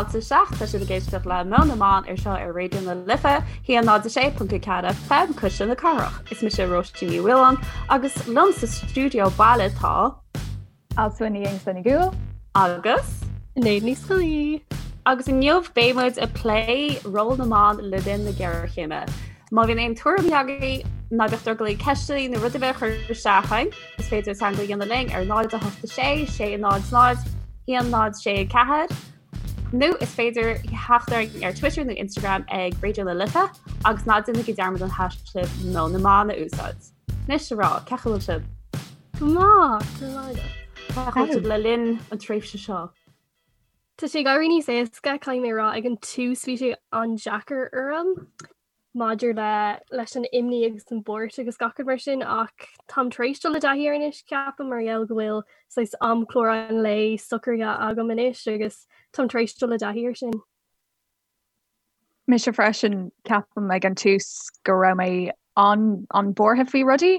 fáilte isteach, tá sibh ag éisteacht le Meon na mBan ar seo ar Raidió na Life, 106.4 FM, Cuisle na Cathrach. Is mise Róisín Ní Mhaoláin agus liom sa stiúideo baile tá. Alswyn Ní Aonghusa Ní Dhúill. Agus. Sinéad Ní Scolaí. Agus inniu beidh muid ag plé ról na mban le linn na géarchéime. Má bhíonn aon tuairimí agaibh, ná bíodh drogall oraibh ceisteanna nó rud ar bith a chur isteach chugainn, is féidir teagmháil a dhéanamh linn ar 0 8 6 6 0 0 1 0 6 4 nó is féidir theacht orainn ar Twitter nó Instagram ag Raidió na Life agus ná déanaigí dearmad an haischlib Meon na mBan a úsáid. Anois a mhná, cén chaoi a bhfuil sibh? Go maith, go maith agat. Cén chaoi a bhfuil sibh le linn an tréimhse seo? Tá sé ag éirí níos éasca, caithfidh mé a rá, ag an tús bhí sé an-deacair orm maidir le leis an imní agus an bhuairt agus gach rud mar sin ach táim tar éis dul i dtaithí air anois ceapaim mar gheall go bhfuil saghas amchlár an lae socraithe agam anois agus táim tar éis dul i dtaithí air sin. Mise freisin, ceapaim ag an tús go raibh mé an-an-bhuartha faoi rudaí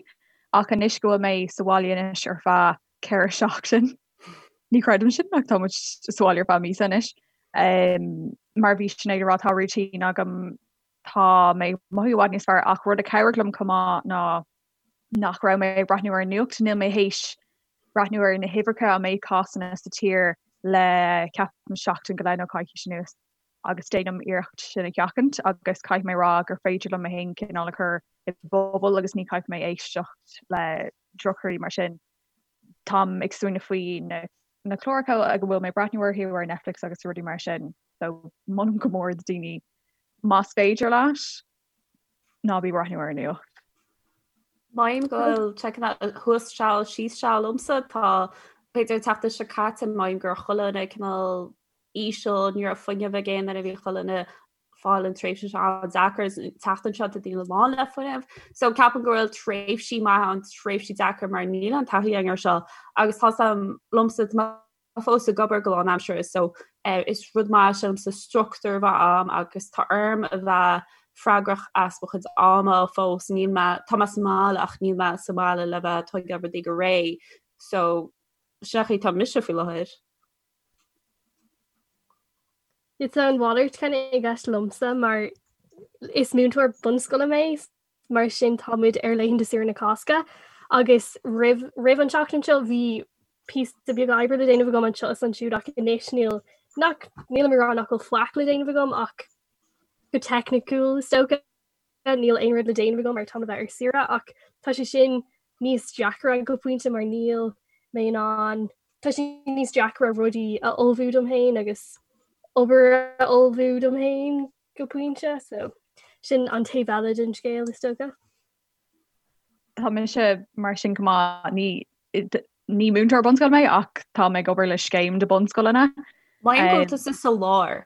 ach anois go bhfuil mé sa bhaile anois ar feadh 4 seachtain, ní chreidim sin ach tá muid sa bhaile ar feadh míosa anois. Mar bhí Sinéad ag rá tá routine agam, tá mé ag mothú i bhfad níos fearr ach rud a chabhraigh liom chomh maith ná nach raibh mé ag breathnú ar an nuacht, níl mé théis breathnú ar na huimhreacha an méid cásanna sa tír le ceapaim seachtain go leith nó coicís anuas agus déanaim iarracht sin a sheachaint agus caithfidh mé rá gur féidir liom mé féin cineál a chur i bpuball agus ní chaithfidh mé éisteacht le drochrudaí mar sin. Táim ag smaoineamh faoi na na cláracha go bhfuil mé ag breathnú orthu ar Netflix agus rudaí mar sin so molaim go mór do daoine más féidir leat ná bí ag breathnú ar an nuacht. Mothaím go bhfuil sé cineál thuas seal síos seal liomsa tá b'fhéidir an tseachtain seo caite mothaím go raibh chuile dhuine cineál íseal ní raibh fuinneamh ag aon duine bhí chuile dhuine fáil an tréimhse seo an-deacair an tseachtain seo tá daoine lán le fuinneamh. So ceapaim go bhfuil tréimhsí maithe ann tréimhsí deacair mar níl an taithí againn air seo agus tá liomsa tá mé fós ag obair go lánaimseartha so eh, is rud maith sílimse struchtúr a bheith a'm agus tá orm a bheith freagrach as mo chuid ama fós níl mé tá mé sa mbaile ach níl mé sa mbaile le bheith ag tógáil rudaí go réidh so sin an chaoi atá mise faoi láthair. Tá an mhalairt kind of i gceist liomsa mar is múinteoir bunscoile mé, mar sin tá muid ar laethanta saoire na Cásca agus roimh roimh an tseachtain seo bhí píosa beag oibre le déanamh agam anseo is ansiúd ach anois níl nach nílim ag rá nach bhfuil faic le déanamh agam ach go teicniciúil is dócha. níl aon rud le déanamh agam mar táim le bheith ar saoire ach tá sé sin níos deacra go pointe mar níl mé in ann tá sé níos deacra rudaí a ullmhú dom féin agus obair a ullmhú dom féin go pointe so sin an taobh eile den scéal is dócha. Tá mise mar sin go maith ní ní múinteoir bunscoile mé ach tá mé ag obair le scéim de bunscoileanna. Mothaím go bhfuil tusa sa lár.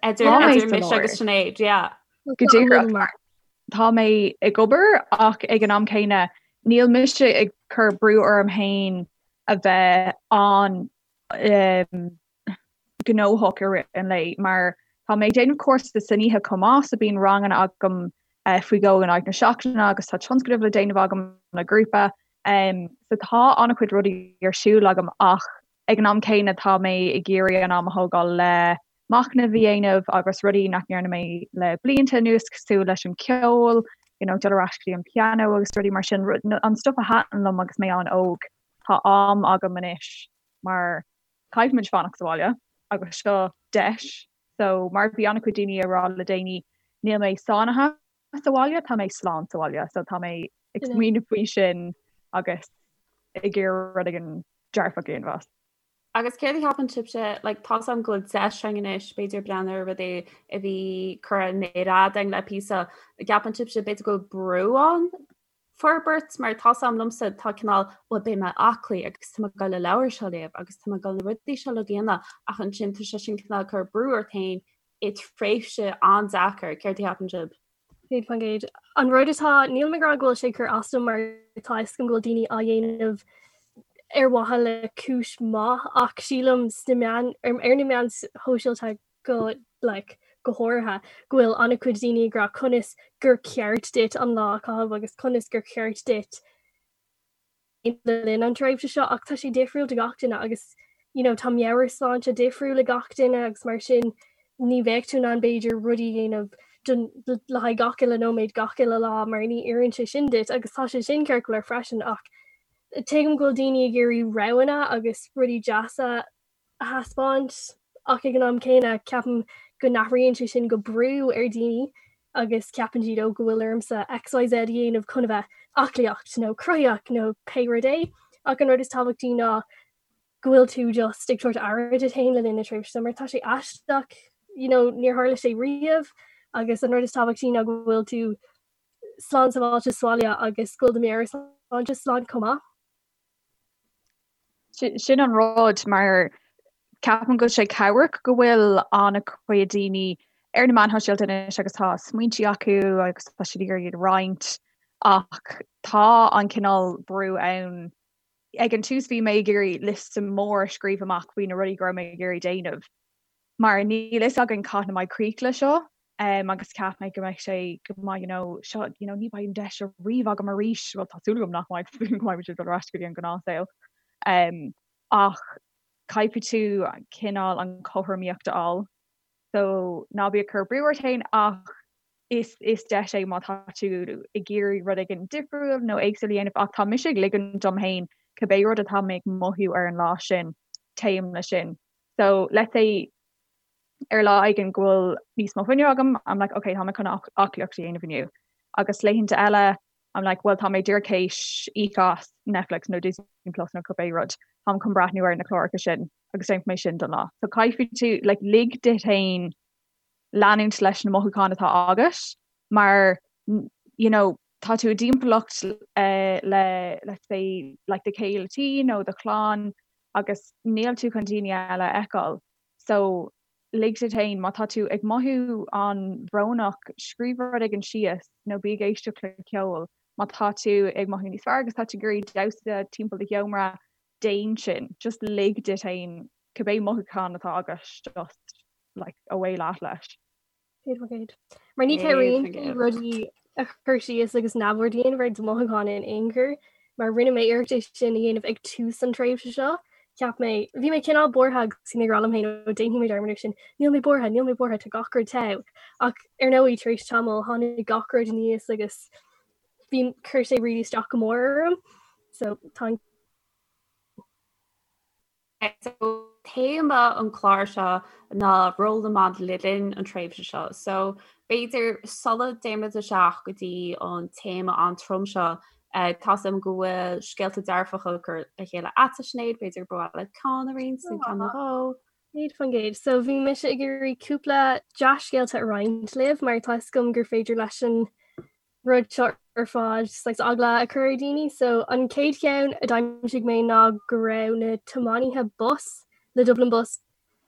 Idir mise agus Sinéad, yeah. Go díreach. Tá mé ag obair ach ag an am céanna níl mise ag cur brú orm féin a bheith an um, gnóthach i rith an lae mar tá mé ag déanamh cúrsa san oíche chomh maith so bíonn ranganna agam uh, faoi dhó in aghaidh na seachtaine agus tá tionscadal le déanamh agam le grúpa um, so tá an-chuid rudaí ar siúl agam ach Ag an am céanna tá mé ag iarraidh an am a thógáil le machnamh a dhéanamh agus rudaí nach ndearna mé le blianta anuas cosúil leis an ceol, you know, dul ar ais go dtí an pianó agus rudaí mar sin, an stuff a thaitin liom agus mé an-óg. Tá am agam anois mar caithfimid fanacht sa bhaile agus seo deis. So mar bhí an-chuid daoine ag rá le déanaí níl mé sáinnithe sa bhaile, tá mé slán sa bhaile, so tá mé ag smaoineamh faoi sin agus ag iarraidh rud éigin dearfach a dhéanamh as. Agus céard a cheapann sibhse, like, tá's agam go bhfuil deis againn anois, b'fhéidir breathnú ar rudaí a bhí curtha i méar fhada againn le píosa, gceapann sibhse b'fhéidir go bhfuil brú ann forbairt mar tá's agam liomsa tá cineál bhuel beidh mé aclaí agus tá mé ag dul an leabhar seo a léamh agus tá mé ag dul na rudaí seo a dhéanamh ach ansin tá sé sin cineál ag cur brú ort féin i tréimhse an-deacair, céard a cheapann sibh? 100%. An rud atá, nílim ag rá go bhfuil sé ag cur as dom mar tá a fhios agam go bhfuil daoine á dhéanamh ar mhaithe le cúis maith ach sílim sna meáin, ar na meáin shóisialta go like go háirithe go bhfuil an-chuid daoine ag rá conas gur ceart duit an lá a chaitheamh agus conas gur ceart duit le linn an tréimhse seo ach tá sé difriúil do gach duine agus. You know, tá meabhairshláinte difriúil ag gach duine agus mar sin ní bheadh tú in ann b'fhéidir rudaí a dhéanamh don, le haghaidh gach uile nóiméad gach uile lá mar ní oireann sé sin duit agus tá sé sin ceart go leor freisin ach tuigim go bhfuil daoine ag iarraidh roghanna agus rudaí deasa a thaispeáint ach ag an am céanna ceapaim go n-athraíonn sé sin go brú ar dhaoine agus ceapann siad ó go bhfuil ormsa XYZ a dhéanamh chun a bheith aclaíocht nó cruthaíoch nó pé rud é ach an rud is tábhachtaí ná go bhfuil tú just ag tabhairt aire duit féin le linn na tréimhse seo mar tá sé aisteach you know níor tharla sé riamh agus an rud is tábhachtaí ná go bhfuil tú slán sábháilte sa bhaile agus go bhfuil do mheabhairshláinte slán chomh maith. Sin an rud mar ceapaim go bhfuil sé cabhrach go bhfuil an-chuid daoine ar na meáin shóisialta anois agus tá smaointe acu agus tá siad ag iarraidh iad a roinnt ach tá an cineál brú ann. Ag an tús bhí mé ag iarraidh liosta mór a scríobh amach faoi na rudaí go raibh mé ag iarraidh déanamh mar níl fhios againn cathain a mbeidh críoch le seo agus cheap mé go mbeidh sé go mbeidh you know seo you know ní bheidh an deis seo riamh agam arís, bhuel tá súil agam nach mbeidh, tá súil agam go mbeidh muid ag dul ar ais go dtí an gnáthshaol. Ach caithfidh tú cineál an chothromaíocht a fháil so ná bí ag cur brú ort féin ach is is deis é má tá tú ag iarraidh rud éigin difriúil nó éagsúil a dhéanamh ach tá mise ag ligean dom féin cibé rud atá mé ag mothú ar an lá sin téim leis sin. So let's say ar lá éigin go bhfuil níos mó fuinnimh agam, I'm like ok tá mé chun aclaíocht a dhéanamh inniu. Agus laethanta eile I'm like well tá mé díreach théis íoc as Netflix nó Disney Plus nó cibé rud, táim chun breathnú ar na cláracha sin agus déanfaidh mé sin don lá. So caithfidh tú like lig duit féin leanúint leis na mothúcháin atá agat mar you know tá tú i dtimpeallacht le let's say like do chéile tí nó do chlann agus níl tú chun daoine eile a fheiceáil. So lig duit féin, má tá tú ag mothú an-bhrónach, scríobh rud éigin síos nó bí ag éisteacht le ceol. Má tá tú ag mothú níos fearr agus tá tú ag iarraidh damhsa timpeall do sheomra, déan sin. Just lig duit féin cibé mothúchán atá agat just like away leat leis. 100%. Mar ní chabhraíonn sé rudaí a chur síos agus neamhaird a dhéanamh ar do mhothúcháin in aon chor, mar rinne mé iarracht é sin a dhéanamh ag tús an tréimhse seo. Cheap mé, bhí mé cineál buartha agus bhí mé ag rá liom féin, ó déanfaidh mé dearmad air sin, níl mé buartha, níl mé buartha, tá gach rud togha. Ach ar ndóigh, tar éis tamaill, tháinig gach rud aníos agus bhí, chuir sé really isteach go mór orm. So tá an. So téama an clár seo ná ról na mban le linn an tréimhse seo. So b'fhéidir sula dtéimid isteach go dtí an téama an-trom seo, eh, tá 's agam go bhfuil scéalta dearfacha curtha le chéile agat Sinéad, b'fhéidir ba mhaith leat ceann a roinnt nó ceann nó dhó. 100%. So bhí mise ag iarraidh cúpla dea-scéalta a roinnt libh mar tá 'fhios agam gur féidir leis an rud seo ar fad saghas eagla a chur ar dhaoine. So an chéad cheann a d'aimsigh mé ná go raibh na tiománaithe bus le Dublin Bus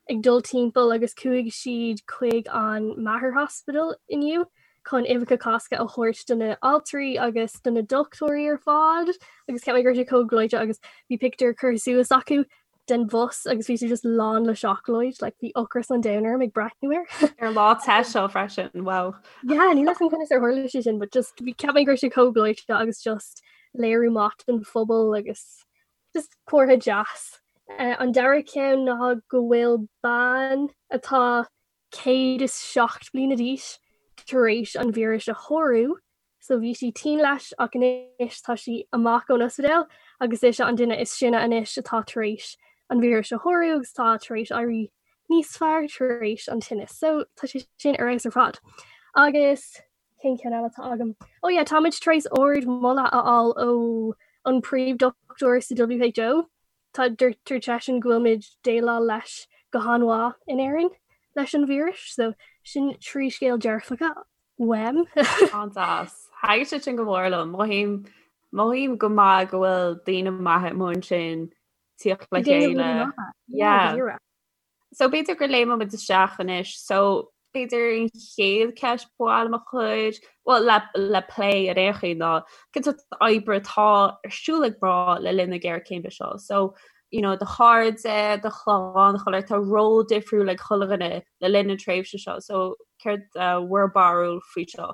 ag dul timpeall agus chuaigh siad chuig an Mater Hospital inniu chun uibheacha Cásca a thabhairt do na altraí agus do na dochtúirí ar fad agus cheap mé go raibh sé chomh gleoite agus bhí pictiúr curtha suas acu den bhus agus bhí sé just lán le seacláid, like bhí ocras an domhain orm ag breathnú air. Ar lá te seo freisin, wow. Yeah, níl 'fhios agam conas ar tharla sé sin, but just bhí cheap mé go raibh sé chomh gleoite agus just léiriú maith don phobal agus just comhartha deas. Uh, an dara ceann ná go bhfuil bean atá 107 bliana d'aois tar éis an víreas a shárú So bhí sí tinn leis ach anois tá sí amach ón ospidéal agus ise an duine is sine anois atá tar éis an víreas a shárú agus tá tar éis éirí níos fearr tar éis an tinnis. So tá sé sin ar fheabhas ar fad. Agus cén ceann eile atá agam? Oh yeah, táimid tar éis ard moladh a fháil ó an príomhdhochtúir sa WHO. Tá dúirt seisean go bhfuilimid déileáil leis go han-mhaith in Éirinn leis an víreas, so sin trí scéal dearfacha uaim. An-deas. Thaitin sé sin go mór liom. Mothaím mothaím go maith go bhfuil daoine maithe amuigh ansin tíocht le chéile. Yeah. So b'fhéidir go léimfimid isteach anois. So b'fhéidir an chéad cheist ba mhaith liom a chur, well le le plé ar aon chaoi ná cén sórt oibre atá ar siúl ag mná le linn na géarchéime seo. So you know, do chairde, do chlann, chuile tá ról difriúil ag chuile dhuine le linn na tréimhse seo. So céard uh, bhur barúil faoi seo?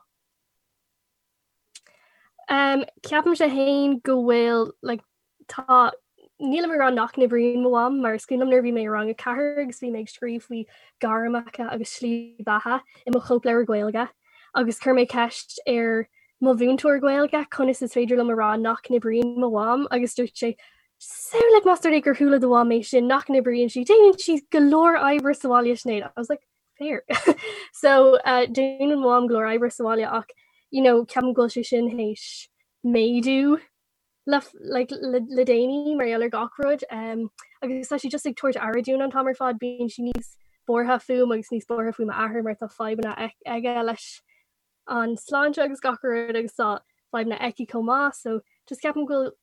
Um, ceapaimse féin go bhfuil like, tá Nílim ag rá nach n-oibríonn mo mham mar is cuimhin liom nuair a bhí mé i rang 4 agus bhí mé ag scríobh faoi gairmeacha agus slí beatha i mo chóipleabhar Gaeilge agus chuir mé ceist ar mo mhúinteoir Gaeilge conas is féidir liom a rá nach n-oibríonn mo mham agus dúirt sé Samhlaigh más rud é gur chuala do mham é sin nach n-oibríonn sí, déanann sí go leor oibre sa bhaile Sinéad. I was like, fair. So uh, déanann mo mham go leor oibre sa bhaile ach you know, ceapaim go bhfuil sé sin théis méadú le like le le déanaí mar gheall ar gach rud um, agus tá sí just ag tabhairt aire dúinn an t-am ar fad bíonn sí níos buartha fúm agus níos buartha faoi m'athair mar tá fadhbanna aige leis an sláinte agus gach rud agus tá fadhbanna aici chomh maith so just ceapaim go bhfuil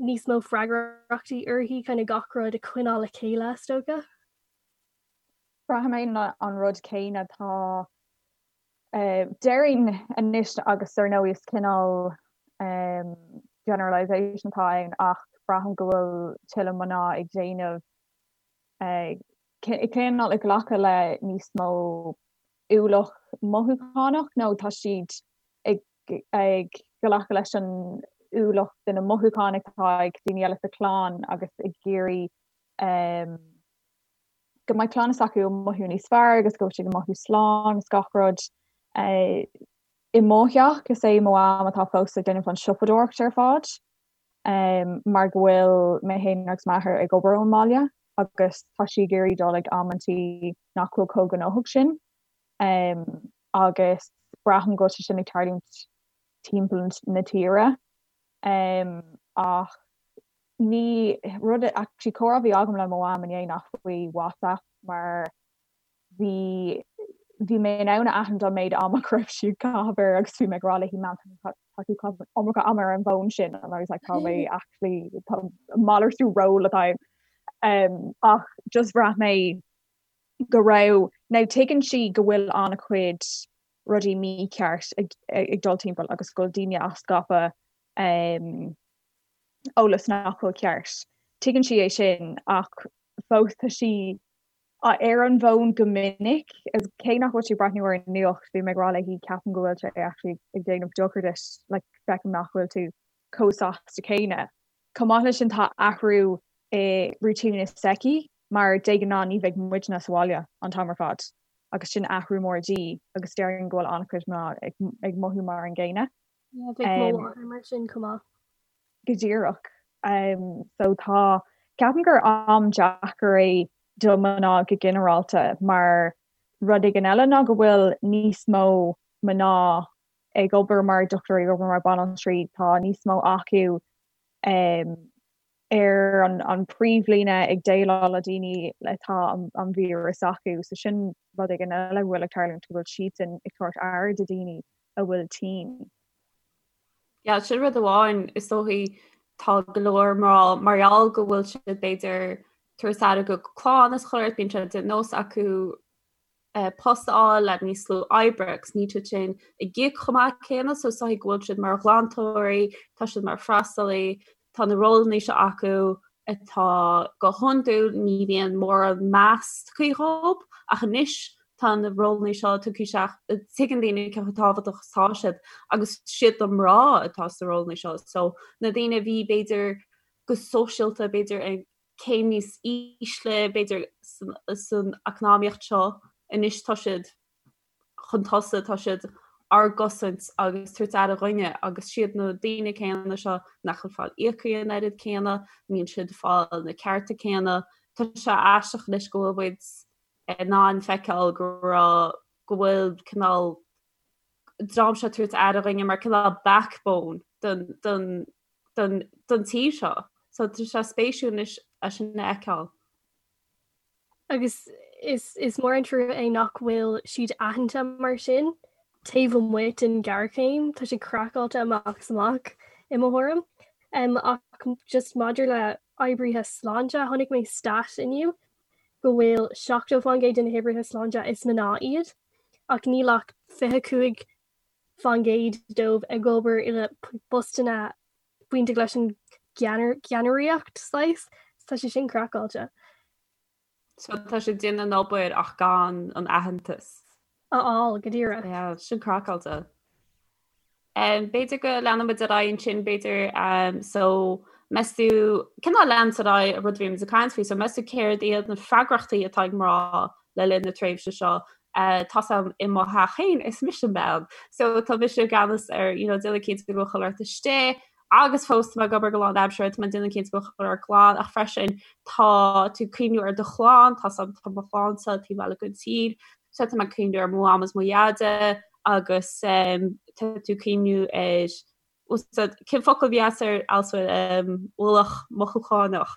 níos mó freagrachtaí uirthi kind of gach rud a choinneáil le chéile is dócha. Braithim an rud céanna tá Déarfainn anois agus ar ndóigh is cineál generalisation atá ann ach braithim go bhfuil tuilleadh mná ag déanamh cineál ag glacadh le níos mó ualach mothúchánach nó tá siad ag ag glacadh leis an ualach de na mothúcháin atá ag daoine eile sa chlann agus ag iarraidh go mbeidh clann s'acu ag mothú níos fearr agus go bhfuil siad ag mothú slán agus gach rud. I mo theach, is é mo mham atá fós ag déanamh an siopadóireacht ar fad mar go bhfuil mé féin agus m'athair ag obair ón mbaile agus tá sí ag iarraidh dul ag amantaí nach bhfuil chomh gnóthach sin agus braithim go bhfuil sé sin ag tarlúint timpeall na tíre ach Ní rud actually comhrá a bhí agam le mo mham inné ná faoi WhatsApp mar bhí bhí mé in ann a aithint an méid ama go raibh sí ag caitheamh air agus bhí mé ag rá léi Mam tá tú ag caitheamh an iomarca ama ar an bhfón sin and I was like tá mé actually tá malartú ról atá ann. Ach just bhraith mé go raibh now tuigeann sí go bhfuil an-chuid rudaí mícheart ag ag dul timpeall agus go bhfuil daoine á scaipeadh eolas nach bhfuil ceart. Tuigeann sí é sin ach fós tá sí ar an bhfón go minic agus cé nach bhfuil sí ag breathnú ar an nuacht, bhí mé ag rá léi ceapaim go bhfuil sé actually ag déanamh dochar duit, like feicim nach bhfuil tú chomh sásta céanna. Chomh maith leis sin tá athrú i routine s'aici mar de ghnáth ní bheidh muidne sa bhaile an t-am ar fad agus sin athrú mór di agus déarfainn go bhfuil an-chuid mná ag mothú mar an gcéanna. Yeah, bheadh mo mháthair mar sin chomh maith. Go díreach. So tá, ceapaim gur am deacair é do mná go ginearálta mar rud éigin eile ná go bhfuil níos mó mná ag obair mar dochtúirí, ag obair mar banaltraí, tá níos mó acu ar an príomhlíne ag déileáil le daoine atá an víreas acu. So sin rud éigin eile a bhfuil ag tarlúint, go bhfuil siadsan ag tabhairt aire do daoine a bhfuil tinn. Yeah, sin rud amháin is dóichí tá go leor mná mar gheall go bhfuil siad b'fhéidir tabhairt aire do clann is chuile shórt bíonn sé de nós acu post a fháil le níos lú oibre agus níl siad sin ag íoc chomh maith céanna so is dóichí go bhfuil siad mar ghlantóirí, tá siad mar freastalaí, tá na rólanna seo acu atá go hiondúil ní bhíonn mórán meas tugtha dhóibh ach anois tá na rólanna seo tugtha isteach, tuigeann daoine cé chomh tábhachtach is atá siad agus siad na mná atá sna rólanna seo so na daoine a bhí b'fhéidir go sóisialta b'fhéidir ag céim níos ísle, b'fhéidir, san eacnamaíocht seo anois tá siad chun tosaigh, tá siad ár gcosaint agus tabhairt aire dhúinne agus siad na daoine céanna seo nach bhfuil fáil íoctha an oiread céanna, níl siad fáil na cearta céanna. Tá sé aisteach anois go bhfuil muid in ann feiceáil go raibh, go bhfuil cineál dream seo tabhairt aire dhúinne mar cineál backbone don, don, don, don tír seo. So tá sé spéisiúil anois é sin a fheiceáil. Agus is, is mór an trua é nach bhfuil siad aitheanta mar sin taobh amuigh den ghéarchéim, tá sé craiceáilte amach is amach i mo thuairim. Um, ach just maidir le oibrithe sláinte, chonaic mé stat inniu go bhfuil 70% de na hoibrithe sláinte is mná iad, ach níl ach 25% dóibh ag obair i bpostanna bainteach leis an gceannaireacht saghas. Tá sé sin craiceáilte. So tá siad déanamh an obair ach gan an aitheantas. A fháil, go díreach. Yeah, sin craiceáilte. B'fhéidir go leanfaimid ar aghaidh ansin, b'fhéidir, so. Meas tú, cineál leanúint ar aghaidh an rud a bhí muid ag caint faoi, so meas tú céard iad na freagrachtaí atá ag mná le linn na tréimhse seo? Tá's a'm i mo theach féin, is mise an bean, so tá mise i gceannas ar, you know, déanamh cinnte go bhfuil chuile shórt istigh, agus fós tá mé ag obair go lánaimseartha, tá mé ag déanamh cinnte go bhfuil chuile shórt glan, ach freisin tá tú ag cuimhniú ar do chlann, tá's a'm tá mo chlannsa taobh eile den tír, so tá mé ag cuimhniú ar mo mham is mo dhaide agus tá tú ag cuimhniú ar Úsáid, cén focal a bhí agat ar also ualach mothúchánach?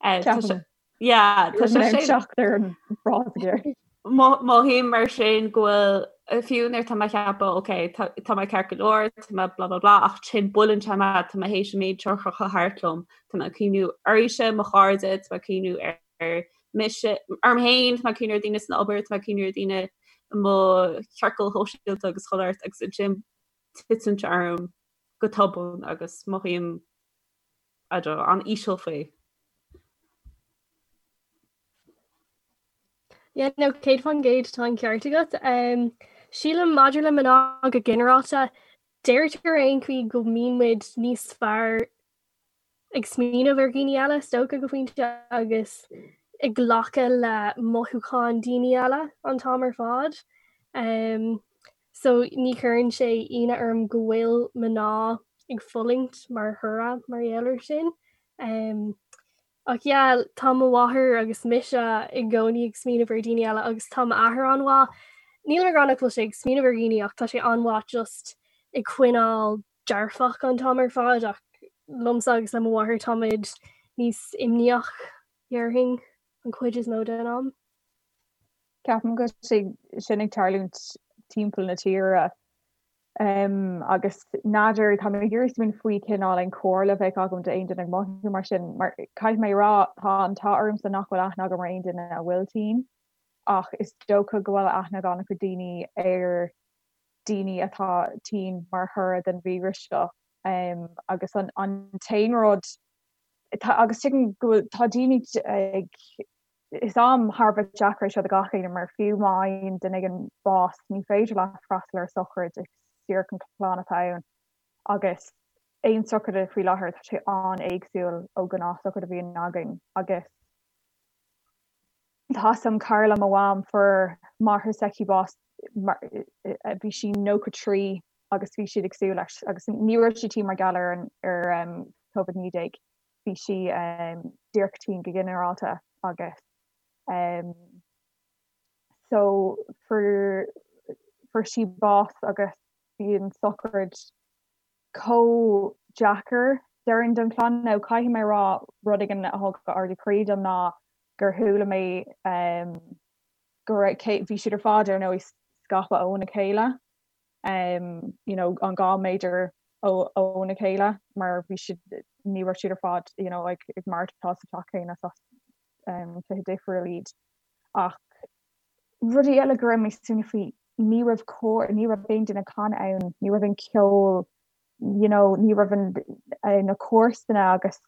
Ceapaim. Yeah, tá sé sin. Teacht ar an bhfrása ceart. Mothaím mar sin go bhfuil fiú nuair tá mé ag ceapadh ok tá mé ceart go leor, tá mé blah blah blah ach ansin buaileann sé mé tá mé théis an méid seo a chrochadh thart liom, tá mé ag cuimhniú oraibhse, mo chairde, tá mé ag cuimhniú ar mise, orm féin, tá mé ag cuimhniú ar daoine san obair, tá mé ag cuimhniú ar daoine i mo chiorcal shóisialta agus chuile shórt agus ansin titeann sé orm go tobann agus mothaím, I don't know, an-íseal faoi. Yeah, no, 100% tá an ceart agat. Um, sílim maidir le mná go ginearálta, deirtear ar aon chaoi go mbíonn muid níos fearr ag smaoineamh ar dhaoine eile, is dócha go pointe, agus ag glacadh le mothúcháin daoine eile an t-am ar fad. Um, so ní chuireann sé ionadh orm go bhfuil mná ag fulaingt mar thoradh mar gheall air sin. Um, ach yeah, tá mo mháthair agus mise i gcónaí ag smaoineamh ar daoine eile agus tá m'athair an-mhaith. Níl mé ag rá nach bhfuil sé ag smaoineamh ar dhaoine ach tá sé an-mhaith just ag coinneáil dearfach an t-am ar fad ach liomsa agus le mo mháthair táimid níos imníoch, déarfainn, an chuid is mó den am. Ceapaim go bhfuil sé sin ag tarlúint timpeall na tíre agus n'fheadar, tá mé ag iarraidh smaoineamh faoi cineál aon chomhairle a bheadh agam d'aon duine ag mothú mar sin mar caithfidh mé a rá tá an t-ádh ormsa nach bhfuil aithne agam ar aon duine a bhfuil tinn ach is dócha go bhfuil aithne ag an-chuid daoine ar daoine atá tinn mar thoradh den víreas seo agus an t-aon rud agus tuigim go bhfuil tá daoine ag is am thar a bheith deacair é seo do gach éinne mar fiú má fhaigheann duine éigin bás ní féidir leat freastal ar sochraid is díreach an clann atá ann agus aon sochraid faoi láthair tá sé an-éagsúil ó ghnáth-sochraid a bhíonn againn agus Tá's a'm cara le mo mham fuair máthair s'aici bás bhí sí 93 agus bhí siad ag súil leis agus ní raibh sí tinn mar gheall ar an ar Covid-19 bhí sí díreach tinn go ginearálta agus so fuair fuair sí bás agus bhí an sochraid chomh deacair déarfainn don chlann. Now caithfidh mé a rá rud éigin a thug ardú croí dom ná gur chuala mé go raibh cé bhí siad ar fad ar ndóigh scaipthe óna chéile you know an 2 méadar óna chéile mar bhí siad ní raibh siad ar fad you know ag ag maireachtáil sa teach céanna is as tithe difriúil iad ach Rudaí eile go raibh mé ag smaoineamh faoi, ní raibh cór, ní raibh aon duine ag canadh ann, ní raibh aon ceol, you know, ní raibh an, na comharsana agus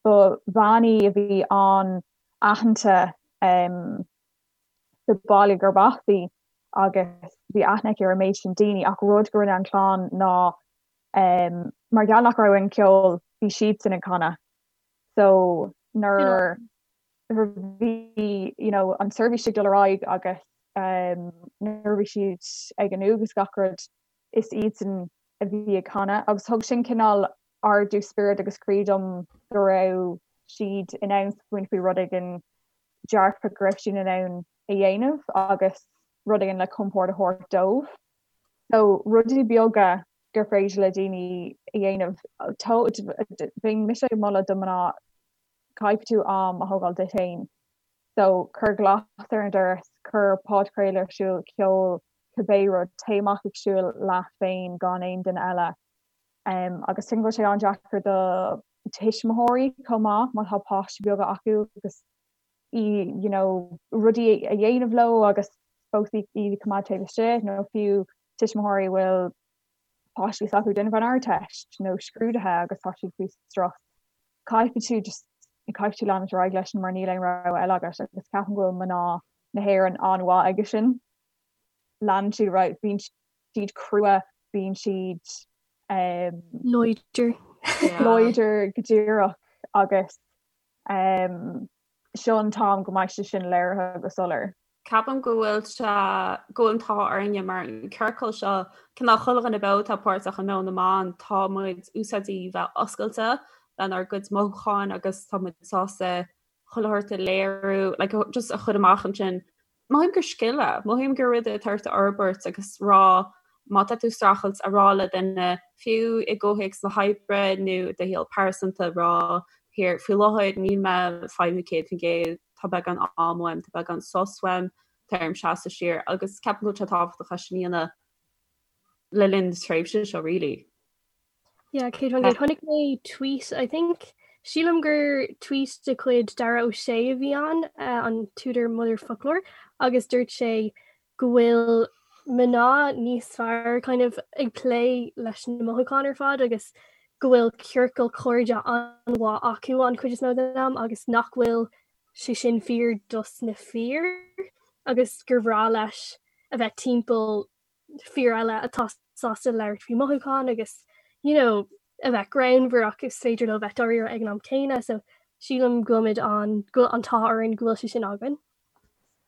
ba bhean í a bhí an-aitheanta sa baile gurb as í agus bhí aithne aici ar an méid sin daoine ach rud go rinne an chlann ná mar gheall nach raibh aon ceol bhí siadsan ag canadh so nuair bhí you know an seirbhís ag dul ar aghaidh agus nuair a bhí siad ag an uaigh agus gach rud is iadsan a bhí ag canadh agus thug sin cineál ardú spioraid agus croí dom go raibh siad in ann smaoineamh faoi rud éigin dearfach go raibh siad in ann a dhéanamh agus rud éigin le compord a thabhairt dóibh. So rudaí beaga gur féidir le daoine a dhéanamh bheinn mise ag moladh do mná caithfidh tú am a thógáil duit féin. So, cuir glas ar an doras, cuir podchraoladh ar siúl, ceol, cibé rud, téigh amach ag siúl leat féin gan aon duine eile. Agus tuigim go bhfuil sé an-deacair do tuismitheoirí chomh maith má tá páistí beaga acu agus you know, rudaí a dhéanamh leo agus fós iad a choimeád taobh istigh nó fiú tuismitheoirí a bhfuil páistí s'acu ag déanamh an Ardteist nó scrúduithe agus tá siad faoi strus. Caithfidh tú just caithfidh tú leanúint ar aghaidh leis mar níl aon rogha eile agat agus ceapaim go bhfuil mná na hÉireann an-mhaith aige sin. Leanann siad ar aghaidh, bíonn siad crua, bíonn siad láidir. Láidir go díreach agus seo an t-am go mbeidh sé sin léirithe go soiléir. Ceapaim go bhfuil sé, go bhfuil an t-ádh orainne mar an ciorcal seo, cineál chuile dhuine beo atá páirteach i Meon na mBan, tá muid úsáidte bheith oscailte lenár gcuid mothúcháin agus tá muid sásta chuile shórt a léiriú, like, just a chur amach ansin. Mothaím gur scil é, mothaím gur rud é atá ort a fhorbairt agus rá má tá tú ag streachailt a rá le duine, fiú i gcomhthéacs na hoibre nó do shaol pearsanta, rá here faoi láthair níl mé ag feidhmiú 100%, tá beagán am uaim, tá beagán sos uaim, tá orm seasamh siar agus ceapaim go bhfuil sé tábhachtach é sin a dhéanamh le linn na tréimhse seo really. Yeah, 100%. Chonaic mé tweet, I think, sílim gur tweet de chuid Dara Ó Sé a bhí ann, uh, an t-údar Motherfoclóir, agus dúirt sé go bhfuil mná níos fearr kind of ag plé leis na mothúcháin ar fad agus go bhfuil ciorcal cairde an-mhaith acu an chuid is mó den am agus nach bhfuil sé sin fíor dos na fir agus gur bhreá leis a bheith timpeall fir eile atá sásta labhairt faoi mothúcháin agus you know a bheith greannmhar ach is féidir leo bheith dáiríre ag an am céanna so sílim go bhfuilimid an go bhfuil an t-ádh orainn go bhfuil sé sin againn.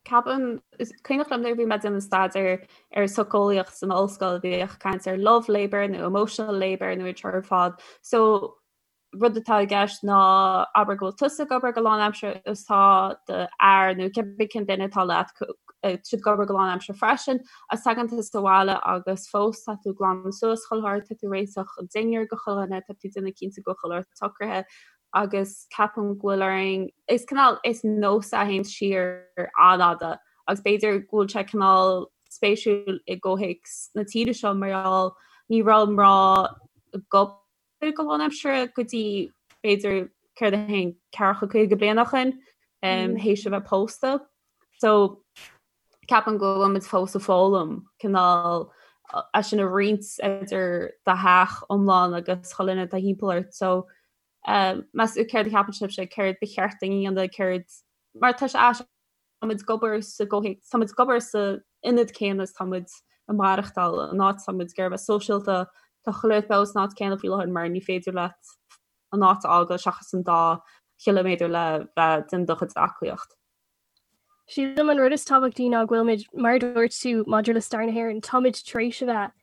Ceapaim, is cuimhneach liom nuair a bhí mé ag déanamh staidéar ar socheolaíocht san ollscoil bhíodh caint ar love labour nó emotional labour nó iad seo ar fad. So rud atá i gceist ná abair go bhfuil tusa ag obair go lánaimseartha agus tá do fhear nó cibé cén duine atá leat siad ag obair go lánaimseartha freisin agus tagann tusa abhaile agus fós tá tú ag glanadh suas chuile shórt, tá tú ag réiteach an dinnéar do chuile dhuine, tá tú ag déanamh cinnte go bhfuil chuile shórt socraithe agus ceapaim go bhfuil orainn, is cineál, is nós a théann siar an-fhada agus b'fhéidir go bhfuil sé cineál spéisiúil i gcomhthéacs na tíre seo mar gheall ní raibh mná ag obair go lánaimseartha go dtí b'fhéidir céard a haon ceathracha 50 bliain ó shin théis a bheith pósta. So ceapaim go bhfuil muid fós ag foghlaim cineál é sin a roinnt idir do theach iomlán agus chuile dhuine atá thimpeall ort. So meas tú céard a cheapann sibhse céard ba cheart dúinn a dhéanamh céard mar tá sé aisteach tá muid ag obair sa gcomhthéacs tá muid ag obair sa ionad céanna is tá muid ag maireachtáil an áit tá muid ag iarraidh bheith sóisialta tá chuile shórt beo san áit céanna faoi láthair mar ní féidir leat an áit a fhágáil seachas an dá chiliméadar le bheith ag déanamh do chuid aclaíocht. Sílim an rud is tábhachtaí ná go bhfuilimid, mar a dúirt tú maidir le stair na hÉireann, táimid tar éis a bheith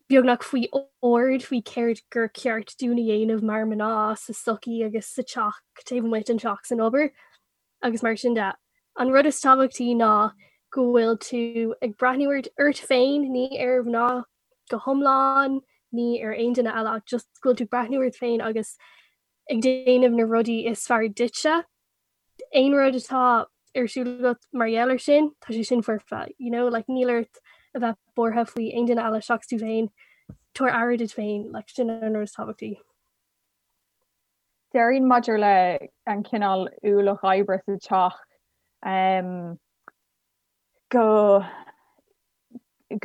beagnach faoi ord faoi céard gur ceart dúinn a dhéanamh mar mná sa sochaí agus sa teach, taobh amuigh den teach san obair agus mar sin de. An rud is tábhachtaí ná go bhfuil tú ag breathnú ort ort féin, ní ar mhná go hiomlán, ní ar aon duine eile ach just go bhfuil tú ag breathnú ort féin agus ag déanamh na rudaí is fearr duitse. aon rud atá ar siúl agat mar gheall air sin, tá sé sin foirfe, you know, like níl ort a bheith buartha faoi aon duine eile seachas tú féin, tabhair aire duit féin, like sin an rud is tábhachtaí. Déarfainn maidir le an cineál ualach oibre sa teach um, go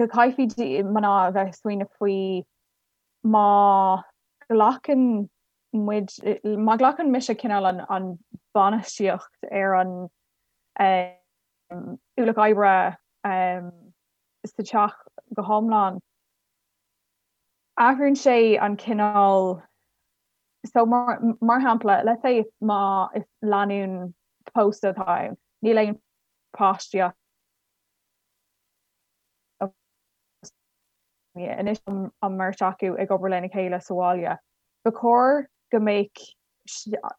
go gcaithfidh mná a bheith ag smaoineamh faoi má ghlacann muid, má ghlacann mise cineál an an bainistíocht ar an ualach oibre sa teach go hiomlán, athraíonn sé an cineál, so mar mar shampla, let's say má is lánúin pósta atá ann, níl aon páistí acu, Anois an mbeirt acu ag obair lena chéile sa bhaile. Ba chóir go mbeadh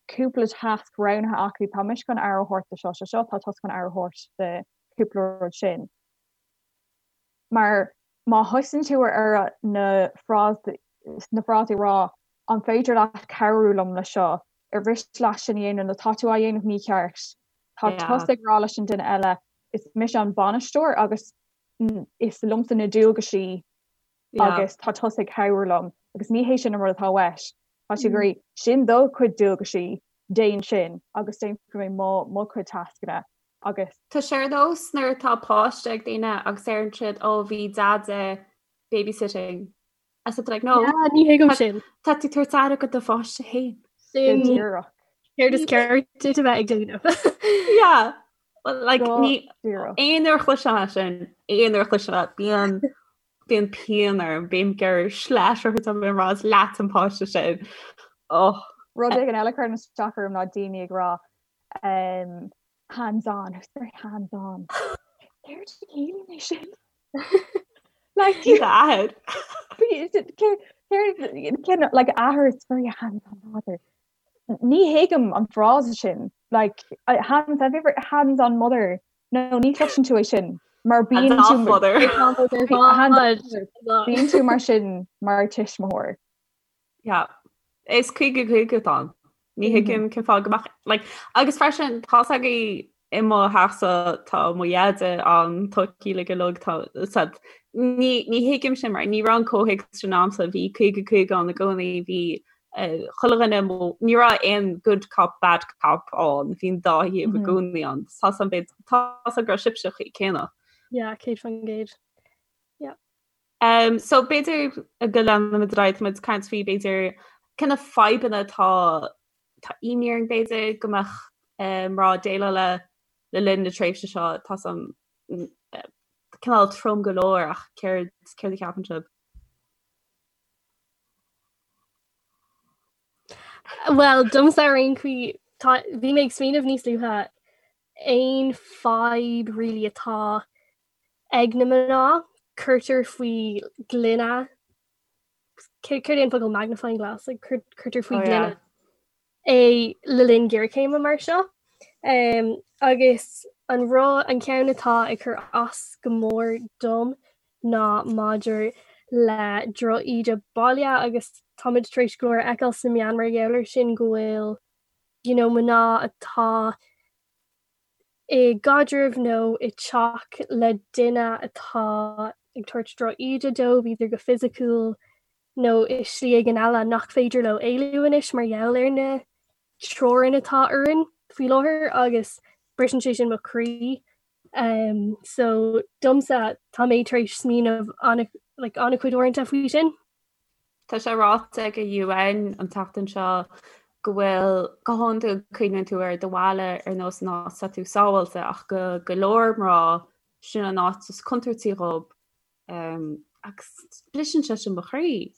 cúpla tasc roghnaithe acu, tá mise chun aire a thabhairt do seo, seo, seo, tá tusa chun aire a thabhairt do cúpla rud sin. Mar má thosaíonn tú ar na frásaí na frásaí a rá an féidir leat cabhrú liom le seo, ar mhiste leat sin a dhéanamh nó tá tú á dhéanamh mícheart. Tá tusa ag rá leis an duine eile is mise an bainisteoir agus is liomsa na dualgaisí agus tá tusa ag cabhrú liom agus ní hé sin an rud atá uait. Tá sé ag rá sin do chuid dualgaisí, déan sin agus déanfaidh mé mo mo chuid tascanna agus. Tá sé ar nós nuair atá páiste ag daoine agus deireann siad ó bhí deaide babysitting As like, no, yeah, ní thuigim sin. Tá tú ag tabhairt aire do do pháiste féin. Sin díreach. Céard is ceart duit a bheith ag déanamh. Yeah. Well, like, ní aon uair a chloisim é sin, aon uair a chloisim é, bíonn. Bíonn pian orm, bím ag iarraidh sleais a thabhairt dom ag rá is leat an páiste sin. Oh. Rud éigin eile a chuireann isteach orm ná daoine ag rá um, hands on, it's very hands on. Céard a chiallaíonn é sin? Like athair. Cén like athair it's very hands on father. Ní thuigim an frása sin like hands have you ever hands on mother No ní chloiseann tú é sin mar bíonn tú bíonn tú mar sin mar tuismitheoir. Yeah. Is 50 50 atá ann. Ní thuigim cén fáth go mbeadh like agus freisin tá a fhios agaibh i mo theachsa tá mo dheaide ann tá ciall go lug tá said ní ní thuigim sin mar ní raibh an comhthéacs sin a'msa bhí 50 50 ann i gcónaí bhí chuile dhuine ní raibh aon good cop bad cop ann, bhí an dá thaobh i gcónaí ann. Tá san bit tá san go raibh sibhse céanna. Yeah, 100%. Yeah. Um, so b'fhéidir go leanfaimid ar aghaidh, táimid ag caint faoi b'fhéidir cé na fadhbanna atá tá imní orainn b'fhéidir go mbeadh mná ag déileáil le le linn na tréimhse seo tá san cineál trom go leor ach céard céard a cheapann sibh? Bhuel, domsa ar aon chaoi, tá, bhí mé ag smaoineamh níos luaithe aon fadhb really atá ag na mná, cuirtear faoi ghloine, céard é an focal magnifying glass, like, cuirtear faoi oh, ghloine yeah. é le linn géarchéime mar seo. Um, agus an rud an ceann atá ag cur as go mór dom ná maidir le drochíde baile agus táimid tar éis go leor a fheiceáil sna meáin mar gheall air sin go bhfuil you know, mná atá i gcaidreamh nó i dteach le duine atá ag tabhairt drochíde dóibh, either go fisiciúil nó i slí éigin eile nach féidir leo éalú anois mar gheall ar na teorainn atá orainn faoi láthair agus briseann sé sin mo chroí. Um, so domsa tá mé tar éis smaoineamh an like, an-chuid uaireanta faoi sin. Tá sé ráite ag an UN an tseachtain seo go bhfuil go hiondúil cuimhníonn tú ar do bhaile ar nós an áit atá tú sábháilte ach go go leor mná sin an áit is contúirtí dhóibh Um, agus briseann sé sin mo chroí.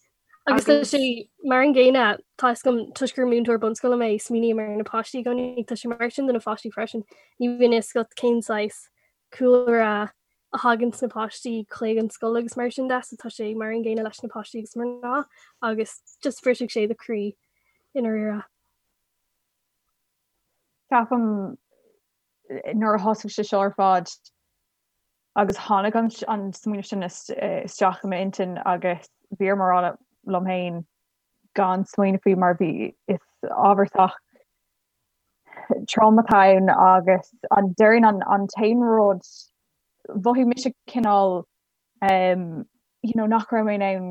Agus tá sé mar an gcéanna tá a fhios agam toisc gur múinteoir bunscoile mé smaoiním ar na páistí i gcónaí tá sé mar sin do na pháistí freisin. Ní bhíonn a fhios agat cén saghas cúlra a thagann na páistí chuig an scoil agus mar sin de so tá sé mar an gcéanna leis na páistí agus mná agus just brisfeadh sé do chroí i ndáiríre. Ceapaim nuair a thosaigh sé seo ar fad Agus tháinig an smaoineamh sin isteach i m'intinn agus bhí orm a rá liom féin gan smaoineamh faoi mar bhí is ábhar sách trom atá ann agus an déarfainn an an t-aon rud mhothaigh mise cineál you know nach raibh mé in ann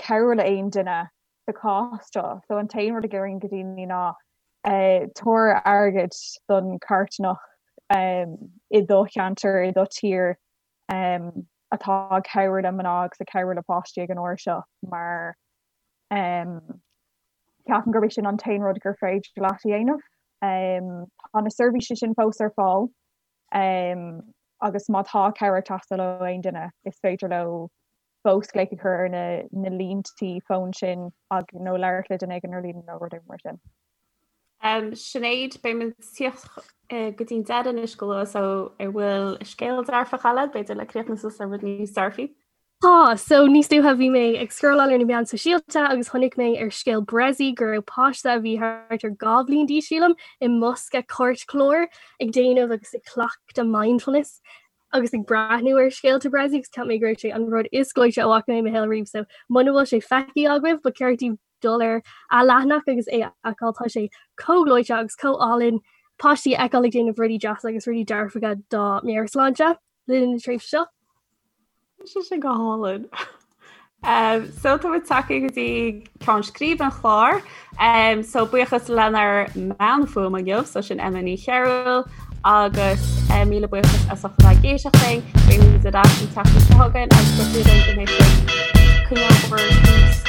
cabhrú le aon duine sa chás seo. So an t-aon rud a déarfainn go daoine ná tabhair airgead don charthanacht i do cheantar, i do tír atá ag cabhrú le mná agus ag cabhrú le páistí ag an uair seo mar ceapaim gurb é sin an t-aon rud gur féidir leat a dhéanamh. Tá na seirbhísí sin fós ar fáil agus má tá cabhair ag teastáil ó aon duine is féidir leo fós glaoch a chur ar na na líntí fóin sin ag nó labhairt le duine éigin ar líne nó rud éigin mar sin. Um, Sinéad, beidh muid ag tíocht go dtí'n deireadh anois go luath so an bhfuil scéal dearfach eile, b'fhéidir le críochnú suas ar rud níos dearfaí? Tá, so níos luaithe bhí mé ag scrolláil ar na meáin sóisialta agus chonaic mé ar scéal Bressy go raibh páiste a bhí thart ar 2 bhliain d'aois sílim i mbosca cairtchláir ag déanamh agus ag cleachtadh mindfulness. agus ag breathnú ar scéalta Bressy agus cheap mé go raibh sé an rud is gleoite a bhfaca mé i mo shaol riamh so muna bhfuil sé feicthe agaibh ba cheart daoibh dul ar a leathanach agus é a fheiceáil tá sé chomh gleoite agus chomh álainn páistí a fheiceáil ag déanamh rudaí deasa agus rudaí dearfacha dá meabhairshláinte le linn na tréimhse seo. Tá sé go hálainn. Um, so tá muid tagtha go dtí ceann scríbe an chláir. Um, so buíochas lenár mbean fuaime inniu, so sin Emma Ní Chearúil agus um, míle buíochas as ucht a bheith ag éisteacht linn. Beimid ar ais an tseachtain seo chugainn agus go dtí go mbeidh sibh coinneáil bhur gcluas.